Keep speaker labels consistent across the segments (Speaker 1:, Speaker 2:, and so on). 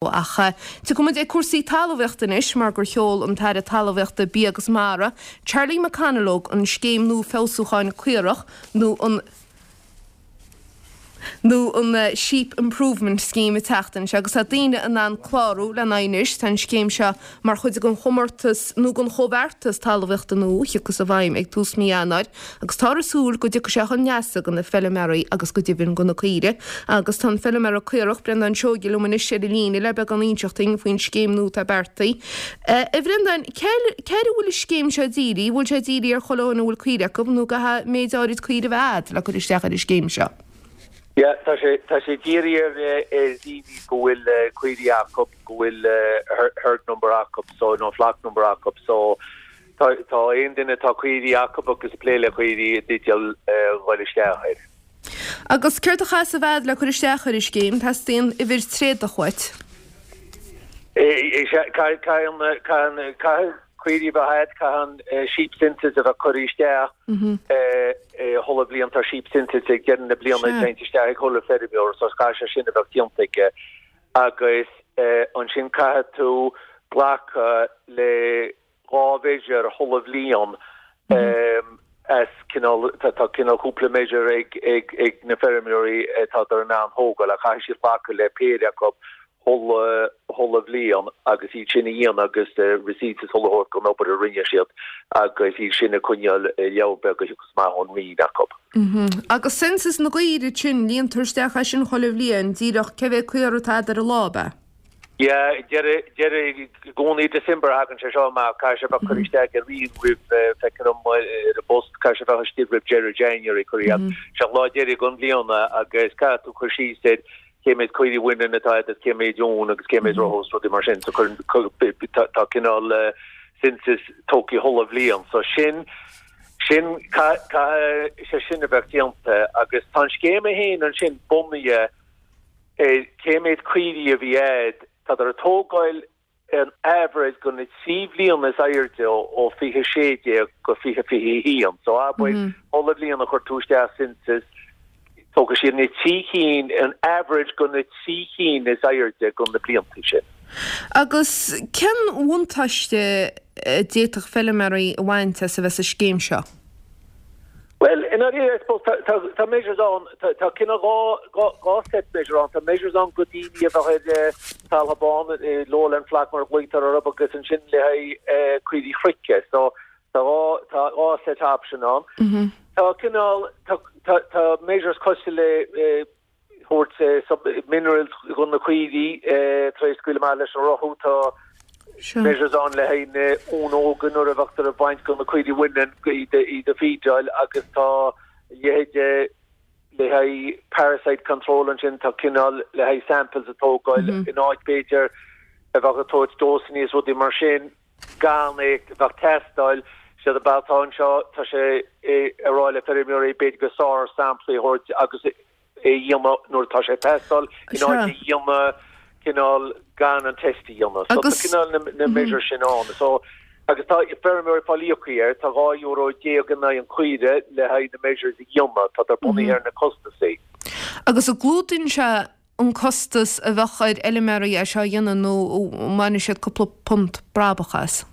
Speaker 1: Ach tiocfaidh muid ag cúrsaí talmhaíochta anois mar gur sheol an tAire Talmhaíochta, Bia agus Mara, Charlie McConalogue an scéim nua feabhsúcháin caorach nó an nó an Sheep Improvement Scheme an tseachtain seo agus tá daoine in ann clárú lena aghaidh anois. Tá an scéim seo mar chuid den chomórtas nó den chomhbheartas talmhaíochta nua a thiocfas i bhfeidhm ag tús mí Eanáir agus táthar ag súil go dtiocfaidh sé chun leasa do na feilméaraí agus go deimhin do na caoirigh. Agus tá an feilméara caorach, Breandán Seoige liom anois ar an líne le beagán a inseacht dúinn faoin scéim nua atá beartaithe. A Bhreandáin, cé air a bhfuil an scéim seo dírithe? Bhfuil sé dírithe ar chuile dhuine a bhfuil caoirigh acu nó caithfidh méid áirid caoirigh a bheith agat le cur isteach ar an scéim seo?
Speaker 2: Yeah, tá sé, tá sé dírithe ar, ar daoine go bhfuil caoirigh acu, go bhfuil herd number acu, so, nó flock number acu, so tá, tá aon duine atá caoirigh acu agus ag plé le caoirigh i dteideal dhul isteach air.
Speaker 1: Agus céard a chaithfeas a bheith agat le cur isteach ar an scéim? Teastaíonn uimhir tréadach uait.
Speaker 2: Caithfidh, caithfidh, caithfidh caoirigh a bheith agat, caithfidh an sheep census a bheith curtha isteach chuile bhliain, tá sheep census ag deireadh na bliana déanta isteach ag chuile feirmeoir, so caithfidh sé sin a bheith déanta aige. Agus ansin caithfidh tú glacadh le 2 mheasure chuile bhliain as cineál, tá cineál cúpla measure ag ag ag na feirmeoirí atádar in ann thógáil ach caithfidh siad glacadh le péire acu chuile chuile bhliain agus iad sin a dhéanamh agus receipts is chuile shórt den obair a rinne siad agus iad sin a coinneáil i leabhar beag a thiocfas amach ón Roinn acu.
Speaker 1: Agus census na gcaoirigh sin, líontar isteach é sin chuile bhliain, díreach cé mhéad caora atá agat ar an lá, ab ea?
Speaker 2: Yeah, deireadh, deireadh, i gcónaí December a thagann sé seo amach, caithfidh sé bheith curtha isteach ag an Roinn roimh, feictear dom ar an bpost, caithfidh sé bheith istigh roimh deireadh January, curtha iad. Sé an lá deiridh den bhliain agus caithfidh tú cur síos ar cé méid caoirigh bhaineann atá agat agus cé méid uan agus cé méid rotha is rudaí mar sin. So cuireann, tá, tá cineál census tógtha chuile bhliain. So sin, sin, caithfidh sé sin a bheith déanta agus tá an scéim é féin ansin bunaithe ar cé méid caoirigh a bhí a'd, tádar ag tógáil an average go na 3 bhliana is airde ó 2016 go 2021. So abair chuile bhliain a chuir tú isteach census, tógfaidh siad na 3 cinn, an average go na 3 cinn is airde go na blianta sin.
Speaker 1: Agus cén bhuntáiste a d'fhéadfadh feilméaraí a bhaint as a bheith sa scéim seo?
Speaker 2: Bhuel, i ndáiríre, I suppose, tá, tá, tá measures ann, tá, tá cineál 2, 2 set measure ann. Tá measures ann go daoine a bheadh ar talamh bán, lowland flock mar a ghlaotar orthu, agus ansin le haghaidh caoirigh chnoic. So, tá 2, tá 2 set option ann. Tá cineál, tá, tá, tá measures cosúil le, thabhairt minerals do na caoirigh tar éis scaoileadh amach leis an rothú. Tá measures ann le haghaidh na uain óga nuair a bheadh ag baint go na caoirigh bhaineann iad a feedáil agus tá a leithéid le haghaidh parasite control ansin tá cineál le haghaidh samples a tógáil in áit b'fhéidir a bheadh ag tabhairt dósanna is rudaí mar sin gan é a bheith ag teastáil. Séard atá anseo tá sé ag rá le feirmeoirí b'fhéidir gur fearr samplaí a thabhairt agus é a dhéanamh nuair atá sé ag teastáil in áit a dhéanamh cineál gan an test a dhéanamh. So tá cineál na measures sin ann. So agus tá feirmeoirí ag fáil íoctha air, tá €12 in aghaidh an chaoire le haghaidh na measures a dhéanamh, tá bunaithe ar na costasaí.
Speaker 1: Agus an gclúdaíonn sé an costas a bheadh ar fheilméaraí é seo a dhéanamh nó an mbainfidh siad cúpla punt brabach as?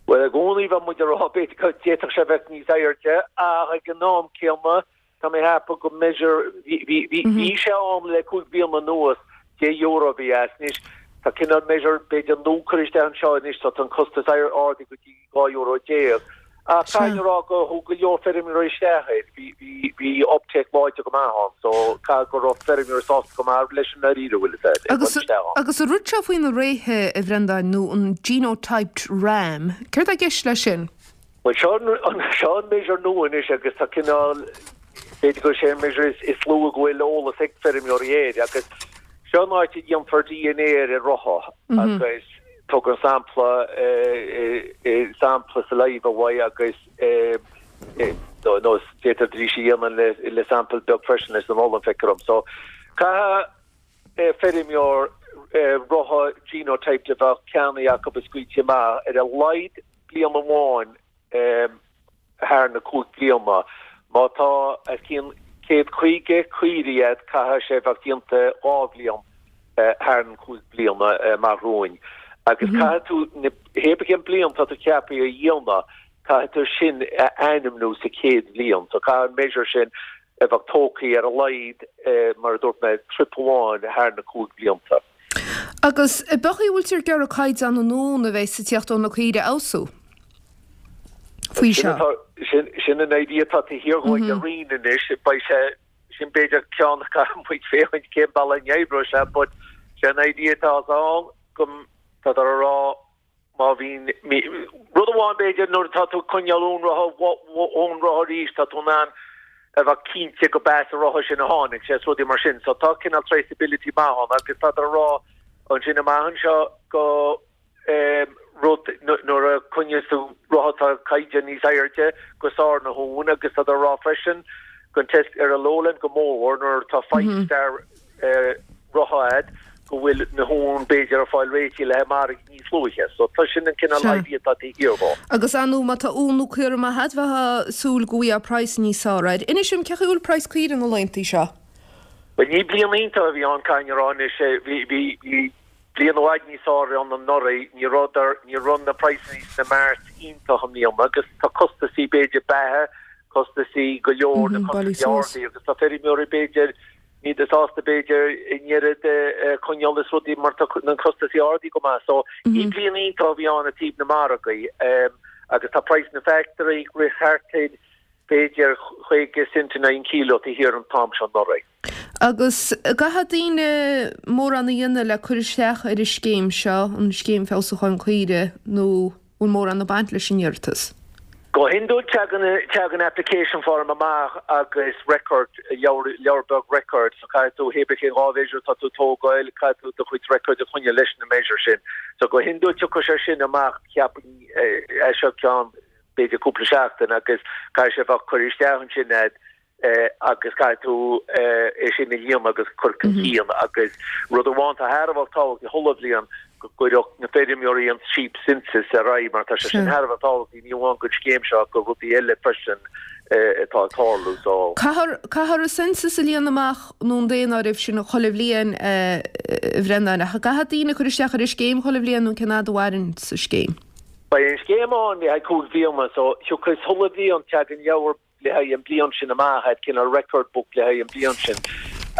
Speaker 2: Bhuel i gcónaí bheadh muid ag rá b'fhéidir go d'fhéadfadh sé bheith níos airde ach ag an am céanna Tá mé ag ceapadh go measure, bhí, bhí, bhí sé ann le 5 bliana anuas, €10 a bhí as. Anois, tá cineál measure b'fhéidir nua curtha isteach anseo anois, so tá an costas ardaithe go dtí €12. Ach caithfidh mé a rá go thug go leor feirmeoirí isteach air, bhí, bhí, bhí uptake láidir go maith ann, so caithfidh go raibh feirmeoirí sásta go maith leis an ndáiríre, bhfuil fhios a'd, ag dul isteach
Speaker 1: ann. Agus an rud seo faoi na réithe, a Bhreandáin, nó an genotyped ram, céard tá i gceist leis sin?
Speaker 2: Bhuel, seo an, seo an measure nua anois agus tá cineál, b'fhéidir gur sé an measure is, is lú go bhfuil eolas ag feirmeoirí air agus seo an áit a dhéanfar DNA ar an rotha agus tugann sampla, sampla saliva uaidh agus nó, nó d'fhéadfaidís a dhéanamh le, le sample beag freisin leis an olann, feictear dom. So, caithfidh feirmeoir rotha genotyped a bheadh ceannaithe acu is scaoilte amach ar a laghad bliain amháin thar na 5 bliana. Má tá os cionn 150 caoirigh agat caithfidh sé bheith déanta 2 bhliain. Thar an 5 bliana amach romhainn agus caithfidh tú na hé bith cén bliain tá tú ceaptha a dhéanamh, caithfidh tú sin a ainmniú sa chéad bhliain. So caithfidh an measure sin a bheith tógtha ar a laghad, mar a dúirt mé, trip amháin thar na 5 blianta.
Speaker 1: Agus an b'é an chaoi a bhfuiltear ag iarraidh caighdeán an uan a bheas ag tíocht ó na caoirigh a fheabhsú faoi
Speaker 2: seo? Sin an idea atá taobh thiar dhó ag an Roinn anois. Beidh sé Sin b'fhéidir ceann a caithfidh muid féachaint cén bealach a n-oibreoidh sé but sé an idea atá ann go tádar a rá má bhíonn rud amháin b'fhéidir nuair atá tú ag coinneáil ón rotha ón rotha arís tá tú in ann a bheith cinnte go b'as an rotha sin a tháinig sé is rudaí mar sin so tá cineál traceability maith ann agus tádar a rá ansin amach anseo go rud nuair a choinneos tú rotha tá caighdeán níos airde gur fearr na huain agus tádar a rá freisin gon test ar an lowland go mórmhór nuair atá five star rotha a'd go bhfuil na huain b'fhéidir ag fáil réitithe le haghaidh margaidh níos luaithe. So tá sin an cineál idea atá taobh thiar dhó.
Speaker 1: Agus ar ndóigh má tá uan nó caora maith a'd bheifeá ag súil go bhfaighfeá praghas níos fearr air. Inis dom cén chaoi a bhfuil praghas caoire na laethanta seo?
Speaker 2: Bhuel ní bliain iontach a bhí ann caithfidh mé a rá anois. Bhí bhí bhí Bliain i bhfad níos fearr ann anuraidh, ní rabhadar, ní raibh na praghsanna sna marts iontach i mbliana agus tá costasaí b'fhéidir beatha, costasaí go leor, na costasaí ardaithe agus tá feirmeoirí b'fhéidir, níl sásta b'fhéidir an oiread a choinneáil is rudaí mar tá na costasaí ardaithe go maith. So ní bliain iontach a bhí ann i dtaobh na margaí agus tá praghas na factory ag rith thart ar b'fhéidir 50 cent in aghaidh an kilo taobh thiar an t-am seo anuraidh.
Speaker 1: Agus an gcaithfidh daoine mórán a dhéanamh le cur isteach ar an scéim seo, an Scéim Feabhsúcháin Caoirigh, nó bhfuil mórán ag baint leis an iarratas?
Speaker 2: Go hiondúil teagann teagann application form amach agus record, leabhar leabhar beag record, so caithfidh tú hé bith cén 2 mheasure atá tú ag tógáil, caithfidh tú do chuid record a choinneáil leis na measure sin. So go hiondúil tiocfaidh sé sin amach cheapfainn as seo ceann b'fhéidir cúpla seachtain agus caithfidh sé bheith curtha isteach ansin a'd agus caithfidh tú é sin a líonadh agus cur chun cinn agus rud amháin atá thar a bheith tábhachtach chuile bhliain go gcuirfeadh na feirmeoirí an sheep census ar aghaidh mar tá sé sin thar a bheith tábhachtach ní amháin don scéim seo ach do rudaí eile freisin atá ag tarlú so.
Speaker 1: Caithfear caithfear an census a líonadh amach nó an daonáireamh sin chuile bhliain a Bhreandáin ach an gcaithfidh daoine cur isteach ar an scéim chuile bhliain nó cén fhad a mhaireann an scéim?
Speaker 2: Beidh an scéim ann le haghaidh 5 bliana so thiocfas chuile bhliain teagann leabhar le haghaidh an bliain sin amach, a'd cineál record book le haghaidh an bliain sin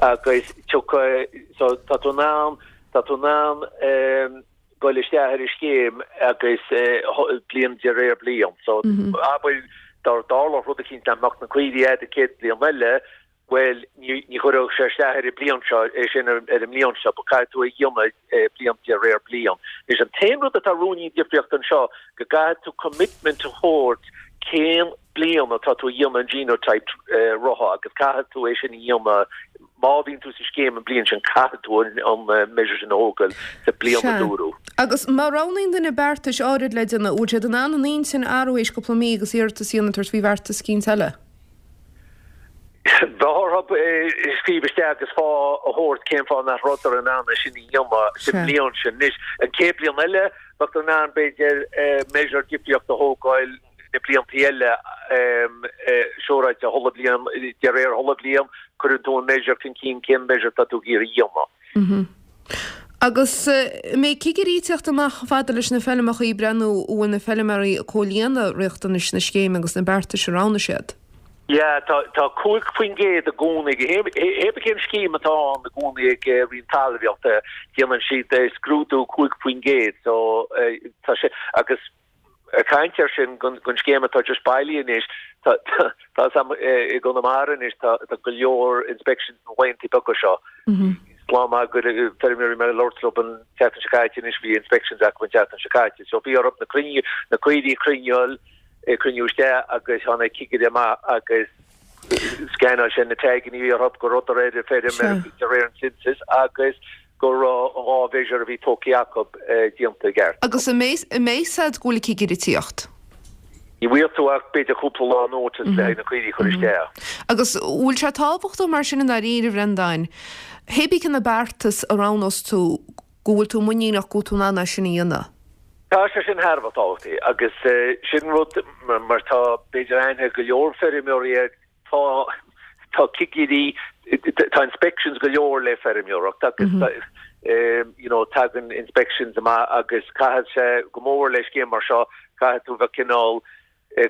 Speaker 2: agus tiocfaidh, so tá tú in ann, tá tú in ann ehm goil isteach ar an scéim agus bliain de réir bliain. So abair dá dtarlódh rud eicínt nach mbeadh na caoirigh a'd an chéad bliain eile, bhuel ní ní chuirfeadh sé isteach ar an bliain seo, é sin ar an mbliain seo, but caithfidh tú é a dhéanamh bliain de réir bliain. Anois an t-aon rud atá ruainnín difríocht anseo go gcaithfidh tú commitment a thabhairt cén bliain atá tú a dhéanamh an genotype rotha agus caithfidh tú é sin a dhéanamh má bhíonn tú sa scéim an bliain sin caithfidh tú an measure sin a thógáil sa bliain a
Speaker 1: Sea.
Speaker 2: dúradh.
Speaker 1: Agus má roghnaíonn duine beartais áirid le déanamh, bhfuil siad in ann an intinn a athrú théis cúpla mí agus iarratas a dhéanamh tabhairt faoi bheartas eicínt eile?
Speaker 2: Bheadh orthu scríobh isteach agus fáth a thabhairt cén fáth nach rabhadar in ann é sin a dhéanamh sa
Speaker 1: Sea.
Speaker 2: mbliain sin. Anois, an chéad bliain eile, bheadh in ann b'fhéidir measure difríocht a thógáil na blianta eile siúráilte chuile bhliain, de réir chuile bhliain, cuireann tú an measure chun cinn, cén measure atá tú ag iarraidh a dhéanamh.
Speaker 1: Agus an mbeidh cigirí ag teacht amach chomh fada leis na feilmeacha ag breathnú an bhfuil na feilméaraí ag comhlíonadh riachtanais na scéime agus na beartais a roghnaigh siad?
Speaker 2: Yeah, tá tá 5% i gcónaí, hé bith cén scéim atá ann i gcónaí ag Roinn Talmhaíochta, déanann siad scrúdú 5% so tá sé agus Ag caint air sin, gon scéim atá just bailithe anois, tá tá 's a'm i gConamara anois tá tá go leor inspections na laethanta beaga seo. Slán maith go feirmeoirí mé ag labhairt leo an tseachtain seo caite anois bhí inspections acu an tseachtain seo caite. So bhí orthu na cruinniú na caoirigh a chruinneáil cruinniú isteach agus tháinig cigire amach agus scannáil sé na taganna a bhí orthu go rabhadar ar an feirm de réir an census agus go raibh an 2 mheasure a bhí tógtha acu déanta i gceart.
Speaker 1: Agus an mbeidh a fhios a'd go bhfuil an cigire ag tíocht?
Speaker 2: Ní bhfuair tú ach b'fhéidir cúpla lá notice le haghaidh na caoirigh a chur isteach.
Speaker 1: Agus bhfuil sé tábhachtach mar sin i ndáiríre, a Bhreandáin, hé bith cé na beartais a roghnós tú, go bhfuil tú muiníneach go bhfuil tú in ann é sin a dhéanamh?
Speaker 2: Tá sé sin thar a bheith tábhachtach agus sin rud mar tá b'fhéidir aithne ag go leor feirmeoirí air, Tá tá cigirí, tá inspections go leor le feirmeoireacht agus. You know, tagann inspections amach agus caithfidh sé go mór le scéim mar seo, caithfidh tú bheith cineál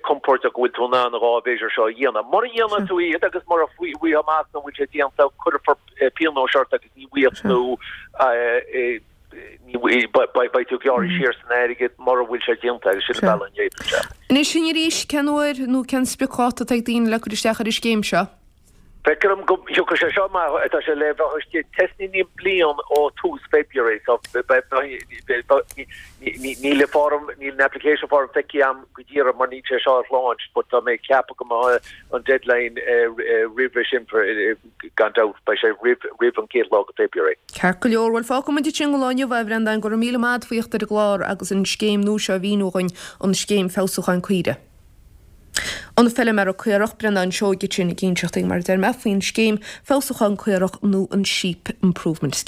Speaker 2: compordach go bhfuil tú in ann an dá mheasure seo a dhéanamh. Mura dhéanann tú iad agus mura bhfaighfeá amach nach bhfuil sé déanta, cuirfear pionóis ort agus ní bhfaighidh tú beidh tú gearrtha siar san airgead mura bhfuil sé déanta agus sin an bealach a n-oibríonn
Speaker 1: sé. Anois sin arís, cén uair nó cén spriocdháta atá ag daoine le cur isteach ar an scéim seo?
Speaker 2: Feictear dom go dtiocfaidh sé seo amach, tá sé le bheith istigh trasna an bliain ó tús February so níl an form, níl an application form feicthe agam go díreach mar níl sé seo ar launch but tá mé ag ceapadh go mbeidh an deadline roimhe sin gan dabht, beidh sé roimh an chéad lá de February.
Speaker 1: Ceart go leor, bhuel fágfaidh muid ansin don lá inniu é a Bhreandáin, go raibh míle maith agat faoi theacht ar an gclár agus an scéim nua seo a mhíniú dhuinn, an scéim feabhsúcháin caoirigh. An feilméara caorach, Breandán Seoige ansin ag inseacht dúinn, mar a deir mé, faoin scéim feabhsúcháin caorach nó an Sheep Improvement Scheme.